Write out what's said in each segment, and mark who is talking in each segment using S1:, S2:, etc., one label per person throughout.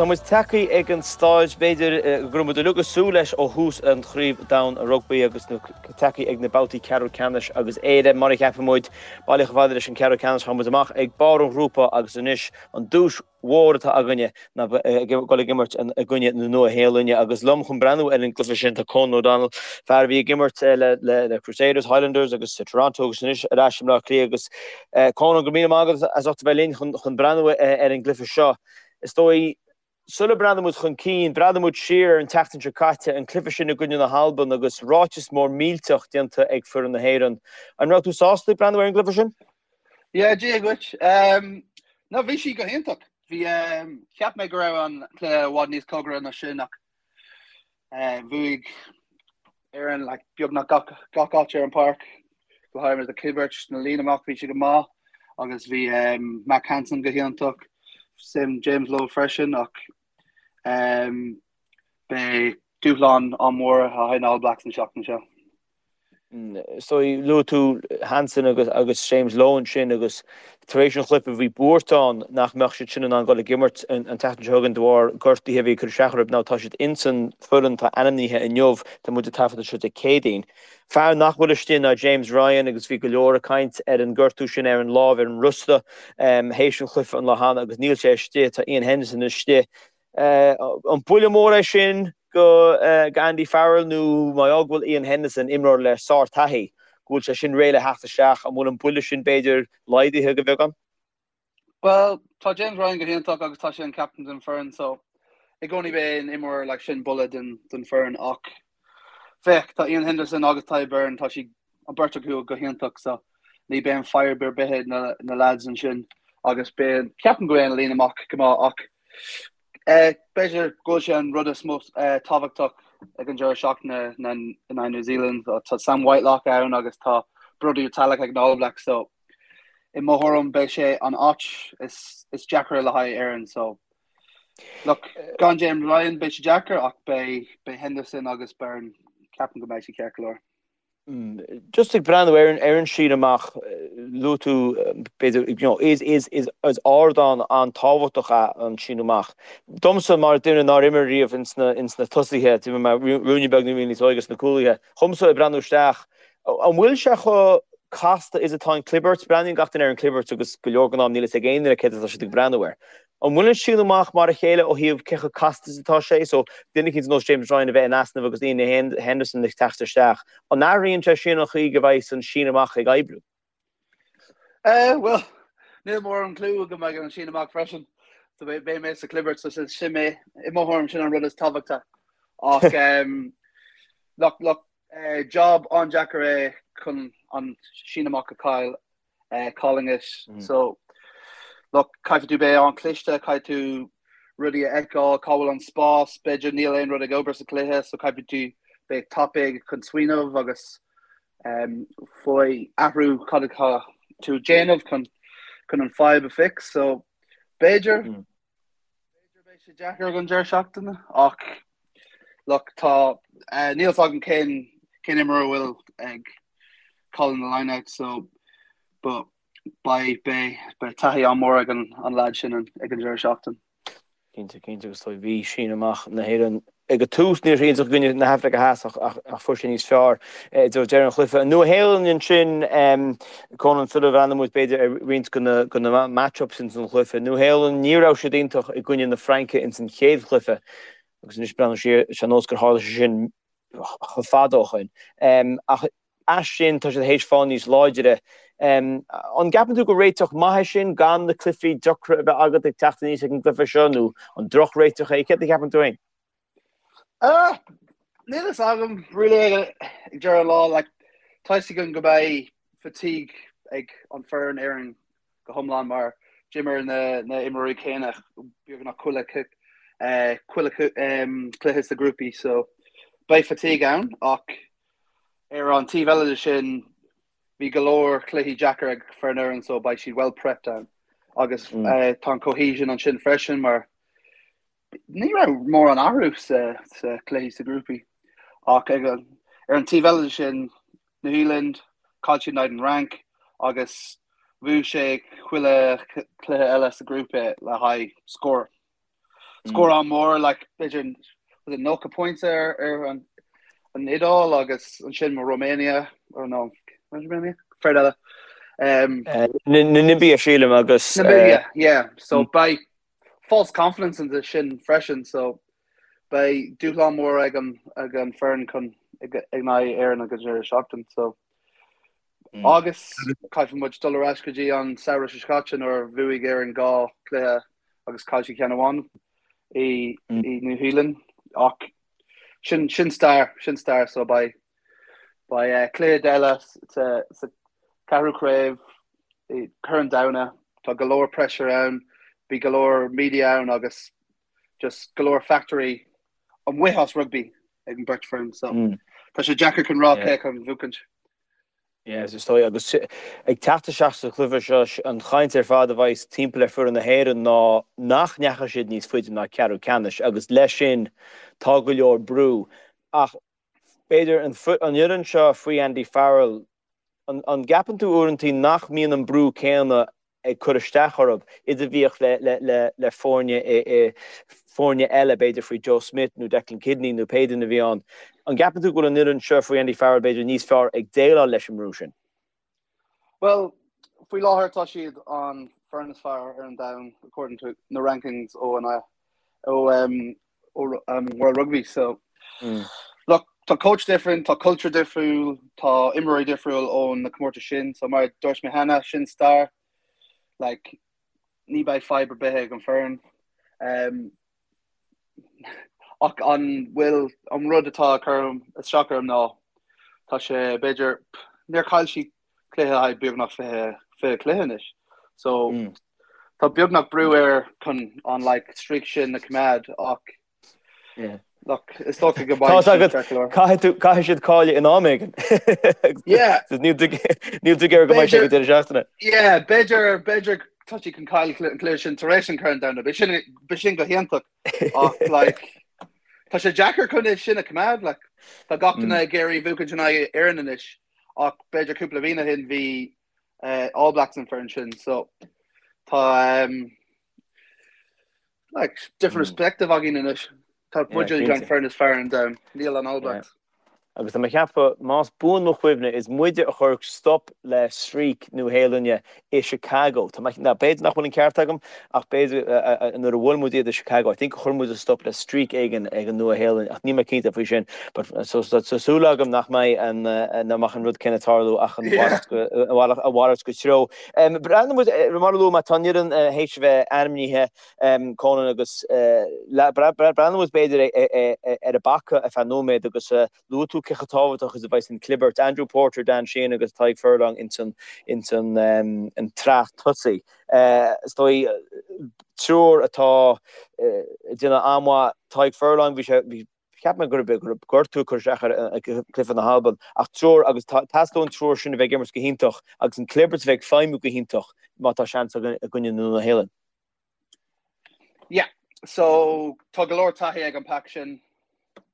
S1: Tá muid tagtha ag an staid, b'fhéidir, go raibh muid uilig ag súil leis ó thús an Chraobh Domhain Rugbaí agus tagtha ag na babhtaí ceathrú ceannais agus Éire, mar a cheapann muid, bailithe chomh fada leis an ceathrú ceannais. Tá muid amach ag barr an ghrúpa agus anois an duais mhór atá againne ná dul ag imirt i gcoinne na Nua-Shéalainne agus liom chun breathnú ar an gcluiche sin tá Conan O'Donnell, fear a bhí ag imirt le Crusaders, Highlanders agus Toronto agus anois ar ais i mBleá Cliath agus Conan, go raibh míle maith agat as ucht a bheith linn chun breathnú ar an gcluiche seo. Is dóigh, sula mbreathnóidh muid chun cinn, breathnóidh muid siar ar an tseachtain seo caite, an cluiche sin i gcoinne na hAlban agus ráiteas mór millteach déanta ag foireann na hÉireann. An raibh tú sásta ag breathnú ar an gcluiche sin?
S2: Yeah, Dia dhuit. Um, no, bhí sí go hiontach. Bhí um, cheap mé go raibh an cluiche i bhfad níos cóngaraí ná sin ach uh, bhuaigh Éirinn like, beagnach gach, gach áit ar an páirc. Go háirithe na clibirt na líne amach bhí sé go maith agus bhí um, Mack Hansen go hiontach, sin James Lowe freisin ach um, beidh dúshlán an-mhór le haghaidh na All Blacks an seachtain seo.
S1: So luaigh tú Hansen agus agus James Lowe ansin agus tar éis an chluiche bhí buairt ann nach mbeadh siad sin in ann dul ag imirt an tseachtain seo chugainn de bharr gortuithe a bhí ag cur isteach orthu. Now tá siad ins an foireann atá ainmnithe inniu, tá muid ag taifeadadh seo Dé Céadaoin. Fear nach bhfuil istigh ná James Ryan agus bhí go leor ag caint ar an gortú sin ar an lámh ar an rosta théis an chluiche an lá cheana agus níl sé istigh, tá Iain Henderson istigh. An buille mór é sin go Andy Farrell nó má go bhfuil Iain Henderson, imreoir le sár-taithí, go bhfuil sé sin réidh le theacht isteach, an bhfuil an buille sin b'fhéidir laghdaithe go beagán?
S2: Bhuel, tá James Ryan go hiontach agus tá sé an captain den foireann so i gcónaí beidh an imreoir like sin buille den den foireann ach féach tá Iain Henderson agus Tadhg Beirne tá siad an beirt acu go hiontach so ní beidh an fadhb ar bith ag na na lads ansin agus beidh ceapaim go mbeidh an líne amach go maith ach B'fhéidir go bhfuil sé an rud is mó tábhachtach ag an deireadh seachtaine in aghaidh New Zealand. Tá Sam Whitelock ann agus tá Brodie Retallick ag na All Blacks so i mo thuairim beidh sé an áit is is deacra le haghaidh Éireann so look gan James Ryan beidh sé deacair ach beidh beidh Henderson agus Beirne ceapaim go mbeidh sé ceart go leor.
S1: Just ag breathnú ar ar an síneadh amach, luaigh tú, b'fhéidir, you know, is, is, is, is ardán an-tábhachtach é an síneadh amach. Domsa, mar duine nár imir riamh ins na, ins na tosaithe, d'imir mé ruainne beag nuair a bhí níos óige sna cúlaithe, dhomsa ag breathnú isteach, an bhfuil sé chomh casta is atá an clibirt? Breathnaíonn gach duine ar an clibirt agus go leor den am níl fhios ag aon duine céard atá siad ag breathnú air. An bhfuil an síneadh amach mar a chéile ó thaobh cé chomh casta is atá sé? So, duine eicínt ar nós James Ryan a bheith in easnamh agus Iain Henderson ag teacht isteach, an athraíonn sé sin an chaoi go mbeidh an síneadh amach ag oibriú?
S2: Eh, bhuel, níl mórán clue agam ag an síneadh amach freisin. So beidh mé sa clibirt, so sin mé, i mo thuairim sin an rud is tábhachtaí. Ach, um, look, look, eh, job an-deacair é chun an síneadh amach a chaill. calling it. So, look, caithfidh tú beith an-chliste, caithfidh tú rudaí a fheiceáil, cá bhfuil an spás, b'fhéidir níl aon rud ag obair sa chluiche, so caithfidh tú beith tapaidh chun smaoineamh agus um, faoi athrú cad atá tú ag déanamh chun chun an fadhb a fix. So, b'fhéidir mm. B'fhéidir beidh sé deacair ag an deireadh seachtaine ach look tá níl fhios agam cén cén imreoir a bhfuil ag calling the line out so but beidh beidh beidh taithí an-mhór
S1: ag
S2: an an lad sin ag an deireadh seachtaine.
S1: Cinnte, cinnte agus tá bhí síneadh amach na hÉireann Ag an tús ní raibh sé iontach i gcoinne na hAfraice Theas ach fuair sé níos fearr i dtreo deireadh an chluiche. An Nua-Shéalainn ansin, Conan, sula bhreathnóidh muid b'fhéidir ar roinnt de na match-ups ins an chluiche. Nua-Shéalainn, ní raibh siad iontach i gcoinne na Fraince ins an chéad chluiche agus anois breathnú siar, is ar nós gur tharla sé sin chomh fada ó shoin. Ach as sin tá siad théis fáil níos láidre. An gceapann tú gur réiteach maith é sin gan na cluichí deacra a bheith agat ag teacht aníos ag an gcluiche seo nó an drochréiteach é? Céard a cheapann tú féin?
S2: Uh, níl fhios agam really ag deireadh an lá like, tá fhios agam go mbeidh fatigue ag an foireann Éireann go hiomlán mar d'imir na, na imreoirí céanna beagnach chuile uh, chuile um, cluiche sa grúpaí so beidh fatigue ann ach Ar an taobh eile de sin, bhí go leor cluichí deacair ag foireann Éireann so beidh siad well prepped ann agus tá an cohesion ansin freisin mar ní raibh mórán athrú sa sa cluichí sa grúpaí ach ag an ar an taobh eile de sin New Zealand chaill siad in aghaidh an Fhrainc agus bhuaigh sé chuile cluiche eile sa grúpa le haghaidh scór. Scór an-mhór, like, b'fhéidir was it 90 pointe ar, ar an, an Iodáil agus ansin Romania, or no, Romania? Foireann eile.
S1: Um, uh, Namibia sílim agus
S2: Namibia, uh, yeah. So mm. beidh false confidence in sin freisin, so beidh dúshlán mór ag an ag an foireann chun ag in aghaidh Éireann ag an deireadh seachtain. So mm. Agus caithfidh muid dul ar ais go dtí an samhradh seo caite nuair a bhuaigh Éirinn dhá cluiche agus chaill siad ceann amháin i mm. i New Zealand ach sin sin stair sin stair so beidh beidh eh, cluiche eile sa sa ceathrú craobh i Corn Domhanda tá go leor pressure ann bhí go leor media ann agus just go leor factory amuigh as rugby ag an beirt foireann so mm. tá sé deacair chun rá cé chun buachaint.
S1: Yes, is dóigh, agus ag teacht isteach sa chluiche seo, an chaint ar fad a bheidh timpeall ar foireann na hÉireann ná nach ndeachaigh siad níos faide ná ceathrú ceannais agus leis sin tá go leor brú. Ach b'fhéidir an fhoireann seo faoi Andy Farrell, an gceapann tú uaireantaí nach mbíonn an brú céanna ag cur isteach orthu, is a bhíodh le foirne foirne eile, b'fhéidir faoi Joe Schmidt nó Declan Kidney nó pé duine a bhí ann. An gceapann tú go bhfuil an fhoireann seo faoi Andy Farrell b'fhéidir níos fearr ag déileáil leis an mbrú sin?
S2: Bhuel, faoi láthair tá siad an foireann is fearr ar an domhan according to na rankings ó an ó um, ó um, World Rugby. So mm. look, tá coach different, tá culture difriúil, tá imreoirí difriúil ó na comórtais sin, so mar dúirt mé cheana sin stair like, ní beidh fadhb ar bith ag an foireann. Um, ach an bhfuil an rud atá cur isteach orm ná tá sé b'fhéidir níor chaill siad cluiche le haghaidh beagnach 20 20 cluiche anois. So mm. tá beagnach brú air chun an like, streak sin a choimeád ach yeah. Look, is dócha go
S1: mbeidh Caithfidh caithfidh siad cailleadh in am éigin.
S2: Yeah.
S1: Níl tú ag iarraidh go mbeidh sé go deireadh seachtaine.
S2: Yeah, b'fhéidir b'fhéidir tá siad chun cailleadh an cluiche sin tar éis an Corn Domhanda. B'shin b'shin go hiontach ach like tá sé deacair chun é sin a choimeád like tá gach duine ag iarraidh buachaint in aghaidh Éireann anois. ach b'fhéidir cúpla bhliain ó shin bhí All Blacks an foireann sin so tá um, like, different mm. perspective againn anois. Tá muid an foireann is fearr an domhan, níl an All Blacks. Yeah.
S1: Agus tá mé ag ceapadh, más buan mo chuimhne, is muide a chuir stop le streak Nua-Shéalainne i Chicago. Tá mé, now b'fhéidir nach bhfuil an ceart agam, ach b'fhéidir nuair a bhuail muid iad i Chicago, I think chuir muid stop le streak éigin ag an Nua-Shéalainn, ach níl mé cinnte faoi sin. But so tá súil agam nach mbeidh an nach mbeadh an rud céanna ag tarlú ach an mhalairt go a mhalairt de threo. Breathnaíonn muid mar a luaigh mé tá an fhoireann théis a bheith ainmnithe Conan agus breathnaíonn muid b'fhéidir ar an bpaca ar feadh nóiméad agus Luaigh tú cé chomh tábhachtach is a bheidh an clibirt, Andrew Porter, Dan Sheehan agus Tadhg Furlong ins an ins an an tsraith tosaigh. Is dóigh triúr atá ag déanamh an-mhaith. Tadhg Furlong, bhí sé bhí cheap mé go raibh go raibh gortú ag cur isteach air i gcluiche na hAlban ach triúr agus teastaíonn an triúr sin a bheith ag imirt go hiontach agus an clibirt a bheith ag feidhmiú go hiontach má tá seans againn i gcoinne na Nua-Shéalainne.
S2: Yeah, so tá go leor taithí ag an pack sin,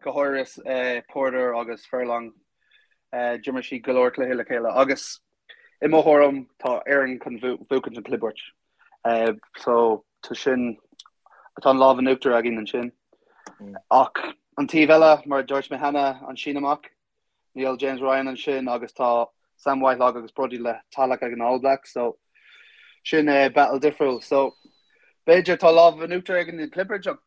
S2: go háirithe eh, Porter agus Furlong. Eh, d'imir siad go leor cluiche le chéile agus i mo thuairim tá Éirinn chun buachaint an clibirt. Eh, so tá sin tá an lámh in uachtar againn ansin. Mm. Ach an taobh eile, mar a dúirt mé cheana, an síneadh amach, Níl James Ryan ansin agus tá Sam Whitelock agus Brodie Le Tallec ag an All Blacks so sin é battle difriúil. So b'fhéidir tá lámh in uachtar ag an clibirt ach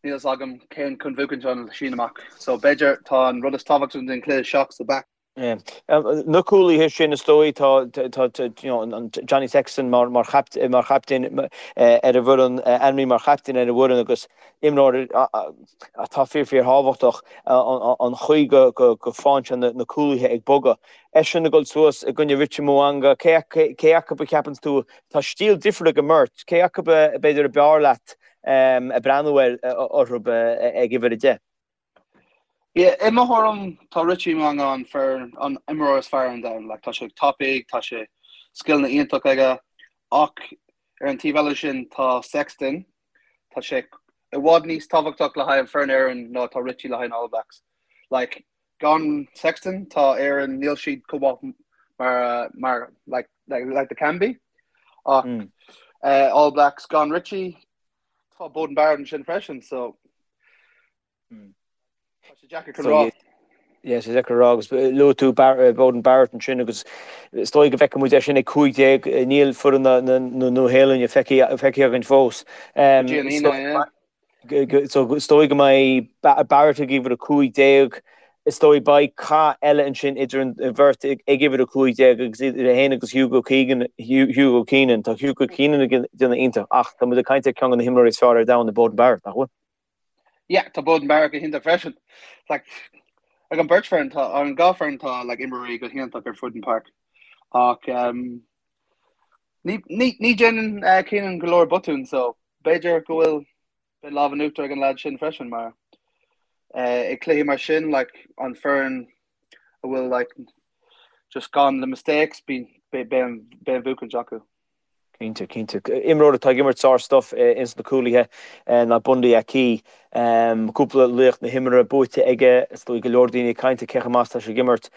S2: níl fhios agam cén chun buachaint an síneadh amach. So b'fhéidir tá an rud is tábhachtaí den cluiche seo sa back.
S1: Na cúlaithe sin is dóigh tá you know, an Johnny Sexton mar mar mar chaptaen ar an bhfoireann ainmnithe mar chaptaen ar an bhfoireann agus imreoir atá fíor fíor thábhachtach an chaoi go bhfaigheann sé na cúlaithe ag bogadh. Eisean ag dul suas i gcoinne Richie Mo'unga, cé acu a cheapanns tú, tá stíl difriúil ag an mbeirt, cé acu b'fhéidir ab fhearr leat ag breathnú ar orthu ag uimhir 10?
S2: Yeah, i mo thuairim tá Richie Mo'unga an fear an imreoir is fearr ar an domhan. Like, tá sé tapaidh, tá sé scileanna iontach aige ach ar an taobh eile sin tá Sexton, Tá sé i bhfad níos tábhachtach le haghaidh an foireann Éireann ná tá Richie le haghaidh an All Blacks. Like, gan Sexton, tá Éireann, níl siad chomh maith mar, mar like, like, like they can be. Ach mm. uh, All Blacks gan Richie, Tá Beauden Barrett ansin freisin so tá sé deacair chun rá.
S1: Yeah, sé deacair a rá agus luaigh tú Beauden Barrett ansin agus is dóigh go bhfeicfidh muid é sin ag 15, níl foireann na Nua-Shéalainne feicthe againn fós.
S2: Go dtí an Aoine, yeah.
S1: So is dóigh go mbeidh Barrett ag uimhir 15, is dóigh beidh cath eile ansin idir an bheirt ag uimhir 15 agus idir é féin agus Hugo Keegan, Hugo Keenan. Tá Hugo Keenan ag déanamh iontach ach tá muid ag caint ar ceann de na himreoirí is fearr ar domhan i Beauden Barrett, nach bhfuil?
S2: Yeah, tá Beauden Barrett go hiontach freisin. Like, ag an beirt foireann tá, an dhá foireann tá like, imreoirí go hiontach ar fud an páirc. Ach um, ní, ní, ní déanann uh, Keenan go leor botún, so b'fhéidir go bhfuil beidh lámh in uachtar ag an lad sin freisin mar uh, ag cluichí mar sin like, an foireann a bhfuil like, just gan na mistakes beidh beidh an beidh an bhuachaint acu.
S1: Cinnte, cinnte. Imreoir atá ag imirt sár-stuff ins na cúlaithe ná Bundee Aki. Cúpla laoch na himeartha buaite aige, is dóigh go leor daoine ag caint ar cé chomh maith is atá sé ag imirt.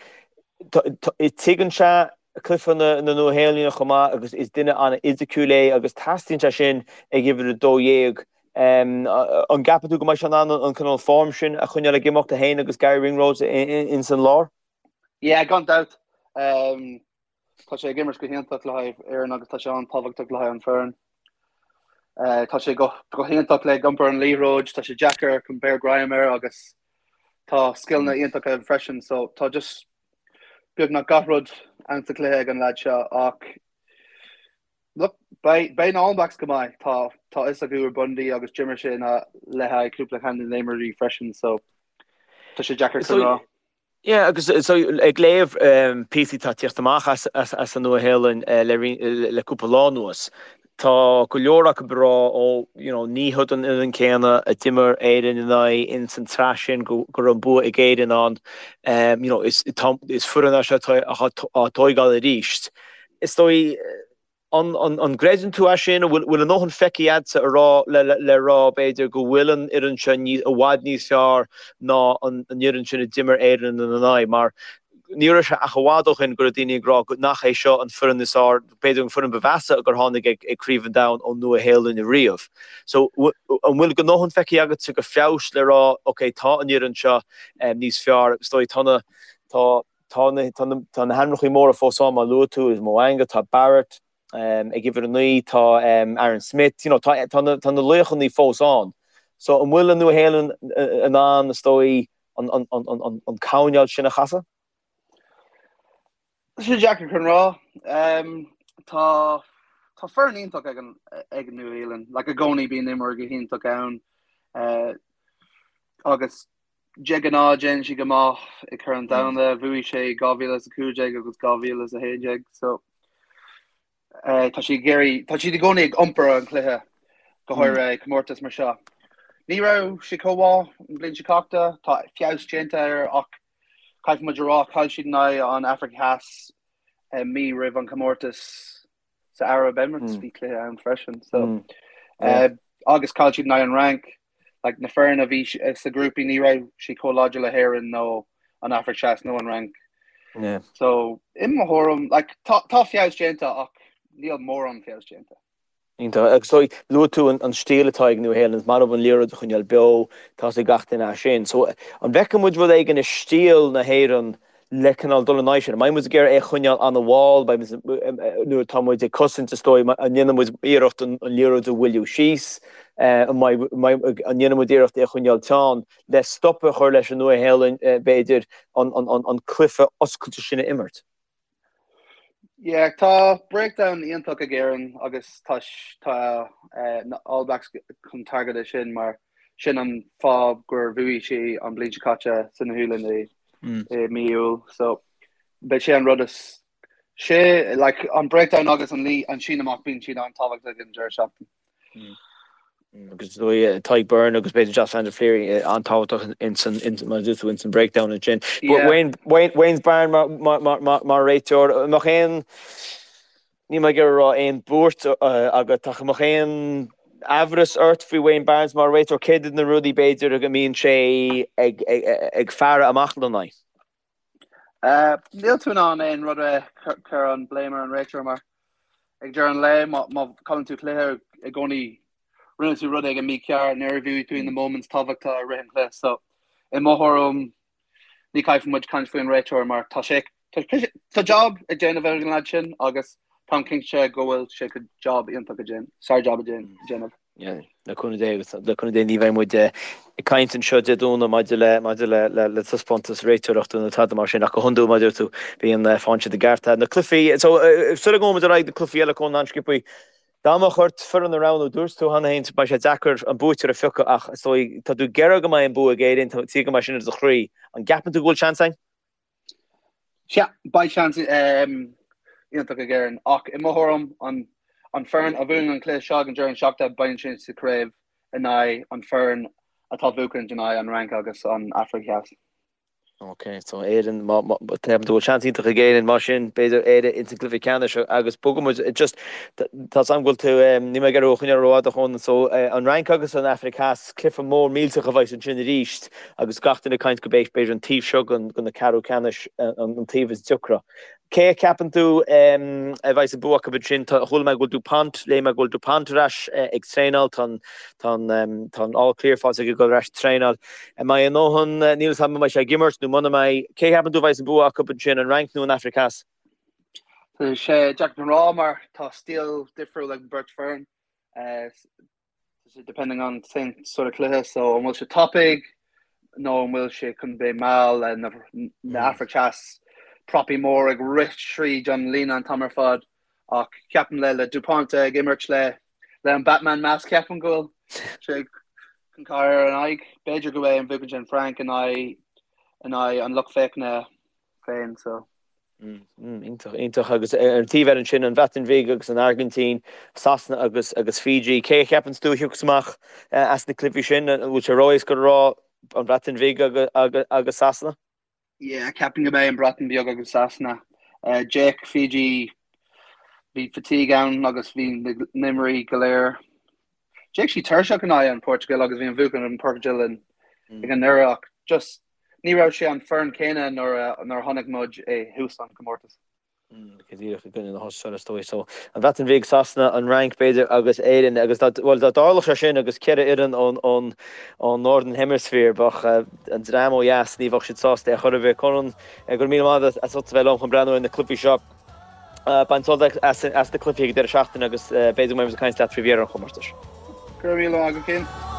S1: Tuigeann sé cluiche na Nua-Shéalainne chomh maith agus is duine an-fhisiciúil é agus teastaíonn sé sin ag uimhir 12. An gceapann tú go mbeidh sé in ann an cineál form sin a choinneáil ag imeacht, é féin agus Garry Ringrose ins an lár?
S2: Yeah, gan dabht. Tá sé ag imirt go hiontach le haghaidh Éireann agus tá sé an-tábhachtach le haghaidh an foireann. Tá sé go hiontach le iompar an liathróid, tá sé deacair chun beir greim air agus tá scileanna iontacha aige freisin so tá just beagnach gach rud ann sa chluiche ag an leaid seo ach look, beidh beidh na All Blacks go maith. Tá tá fhios acu ar Bundee agus d'imir sé ina le haghaidh cúpla ceann de na imreoirí freisin so tá sé deacair chun rá.
S1: Yeah, agus so ag léamh píosaí atá ag tíocht amach as as an Nua-Shéalainn le le cúpla lá anuas, tá go leor acu ag rá ó you know ní hiod an fhoireann céanna a d'imir Éirinn in aghaidh ins an tsraith sin go go raibh an bua ag Éirinn ann. You know is tá is foireann é seo atá á tóigeáil arís. Is dóigh An gcreideann tú é sin? An bhfuil a ndóthain feicthe agatsa a rá le rá, b'fhéidir, go bhfuil an fhoireann seo i bhfad níos fearr ná an fhoireann sin a d'imir Éirinn ina n-aghaidh? Mar ní raibh sé ach i bhfad ó shin go raibh daoine ag rá nach é seo an foireann is fearr, b'fhéidir an foireann ba mheasa gur tháinig ag Craobh an Domhain ón Nua-Shéalainn riamh. So an bhfuil a ndóthain feicthe agatsa de feabhas le rá, ok, tá an fhoireann seo níos fearr, is dóigh tá na, tá, Tá na tá na hainmneacha móra fós ann, mar a luaigh tú, Mo'unga, tá Barrett ag uimhir 9, tá Aaron Smith, you know, tá tá na tá na laochanna fós ann. So an bhfuil an Nua-Shéalainn in ann, is dóigh, an an an an an coirnéal sin a chasadh?
S2: Tá sé deacair chun rá. Tá tá foireann iontach ag an ag an Nua-Shéalainn. Like i gcónaí bíonn imreoir go hiontach ann. Uh, agus De ghnáth déanann siad go maith i Corn an Domhanda, bhuaigh sé 2015 agus 2011 so tá siad ag iarraidh, tá siad i gcónaí ag iompar an chluiche, go háirithe i comórtas mar seo. Ní raibh sé chomh maith an bhliain seo caite, tá feabhas déanta air ach caithfidh muid a rá, chaill siad in aghaidh an Afraic Theas mí roimh an chomórtas. sa Arab Emirates bhí cluiche ann freisin so agus chaill siad in aghaidh an Fhrainc like na foireann a bhí sa grúpaí ní raibh sí chomh láidir le hÉirinn nó an Afraic Theas nó an Fhrainc.
S1: Yeah.
S2: So i mo thuairim like tá tá feabhas déanta ach níl mórán feabhas déanta.
S1: Iontach. Agus so luaigh tú an stíl atá ag Nua-Shéalainn, is maith leo an liathróid a choinneáil beo, tá a fhios ag gach duine é sin. So an bhfeicfidh muid rud éigin i stíl na hÉireann le cineál dul in aghaidh sin? An mbeidh muid ag iarraidh é a choinneáil an-mhall? Beidh muid, nuair atá muid ag cosaint, is dóigh, an ndéanfaidh muid iarracht an liathróid a mhoilliú síos? An mbeidh, an ndéanfaidh muid iarracht é a choinneáil teann le stop a chur leis an Nua-Shéalainn, b'fhéidir, an cluiche oscailte sin a imirt?
S2: Yeah, tá breakdown iontach ag Éirinn agus tá tá na All Blacks chun target é sin mar sin an fáth gur bhuaigh sé an bliain seo caite sa Nua-Shéalainn i i mí Iúil. So beidh sé an rud is sé like an breakdown agus an lí an síneadh amach bíonn siad an-tábhachtach ag an deireadh seachtaine.
S1: Agus is dóigh Tadhg Beirne agus b'fhéidir Josh van der Flier an-tábhachtach ins an mar a dúirt tú ins an breakdown ansin. But Wayne Wayne Wayne Barnes mar mar mar mar mar réiteoir an mbeadh aon níl mé ag iarraidh a rá aon buairt agat ach an mbeadh aon aimhreas ort faoi Wayne Barnes mar réiteoir? Céard iad na rudaí b'fhéidir go mbíonn sé ag ag ag faire amach lena n-aghaidh?
S2: Níl tú in ann aon rud a chur an blame ar an réiteoir mar ag deireadh an lae má má chailleann tú cluiche i gcónaí. rinne tú rud éigin mícheart nuair a bhí tú in na moments tábhachtacha i rith an chluiche. So i mo thuairim ní caithfidh muid caint faoi an réiteoir mar tá sé tá job ag déanamh ag an lad sin agus táim cinnte go bhfuil sé chun job iontach a déanamh, sár job a déanamh.
S1: Le cúnamh Dé agus le cúnamh Dé ní bheidh muid ag caint anseo Dé Domhnaigh maidir le maidir le le le taispeántas réiteoireachta nó tada mar sin ach go hiondúil mar a deir tú bíonn faigheann siad a gceart. Na cluichí so sula ngabhaimid ar aghaidh na cluichí eile Conan an-sciobtha Dá mbeadh ort foireann a roghnú, dúirt tú cheana féin beidh sé deacair an buaiteoir a phiocadh ach is dóigh tá tú ag iarraidh go mbeidh an bua ag Éirinn, tá tú go mbeidh sin i do chroí. An gceapann tú go bhfuil seans
S2: againn? Sea, beidh seans iontach ag Éirinn ach i mo thuairim an an foireann a bhuann an cluiche seo ag an deireadh seachtaine beidh sin sa chraobh in aghaidh an foireann atá buachan in aghaidh an Fhrainc agus an Afraic Theas.
S1: Ok, so Éirinn, má, má, ceapann tú go bhfuil seans iontach ag Éirinn, mar sin, b'fhéidir Éire ins an gcluiche ceannais agus bogfaidh muid, just, tá 's agam go bhfuil tú, níl mé ag iarraidh thú a choinneáil rófhada Chonan, so an Fhrainc agus an Afraic Theas, cluiche mór millteach a bheas ansin arís agus gach duine ag caint go b'é, b'fhéidir an taobh seo den, den na ceathrú ceannais an taobh is deacra. Cé a cheapann tú a bheas an bua acu ansin? Chuala mé go bhfuil Dupont, léigh mé go bhfuil Dupont ar ais ag traenáil, tá an, tá an, tá an all clear faighte aige dul ar ais ag traenáil. An mbeidh a ndóthain, níl 'fhios agam an mbeidh sé ag imirt nó muna mbeidh. Cé a cheapann tú a bheas an bua acu ansin, an Fhrainc nó an Afraic Theas?
S2: Tá sé deacair a rá mar tá stíl difriúil ag an beirt foireann. Depending on cén sort of cluiche, so an bhfuil sé tapaidh nó an bhfuil sé chun beith mall le na na Afraic Theas propaí mór ag rith tríd an líne an t-am ar fad ach ceapaim le le Dupont ag imirt le le an Batman mask ceapaim go bhfuil sé chun cur ar an aghaidh. B'fhéidir go mbeidh an bhuachan sin Frainc in aghaidh in aghaidh an lucht féachana féin so.
S1: Iontach, iontach. Agus ar an taobh eile ansin, an Bhreatain Bhig agus an Airgintín, Sasana agus agus Fiji. Cé a cheapanns tú a thiocfas amach as na cluichí sin? An bhfuil sé ró-éasca a rá an Bhreatain Bhig agus agus Sasana?
S2: Yeah, ceapaim go mbeidh an Bhreatain Bheag agus Sasana. D'fhéach Fiji, bhí fatigue ann agus bhí na n-imreoirí go léir. D'fhéach siad tuirseach in aghaidh an Portugal agus bhí an bhuachan an Portugal ag an ndeireadh ach just Ní raibh sé an foireann céanna nuair a chonaic muid i thús an comórtas.
S1: Go díreach i gcoinne na hAstráile is dóigh. So, an Bhreatain Bhig, Sasana, an Fhrainc b'fhéidir agus Éirinn agus dá, bhuel dá dtarlódh sé sin agus 4 fhoireann ón, ón, ón Northern Hemisphere bheadh an dream ó dheas, ní bheadh siad sásta ar chor ar bith. Conan, go raibh míle maith agat as ucht a bheith liom chun breathnú ar na cluichí seo. Bain sult as na cluichí ag an deireadh seachtaine agus b'fhéidir go mbeidh muid ag caint leat faoi dheireadh an chomórtais.
S2: Go raibh míle maith agat, Cian.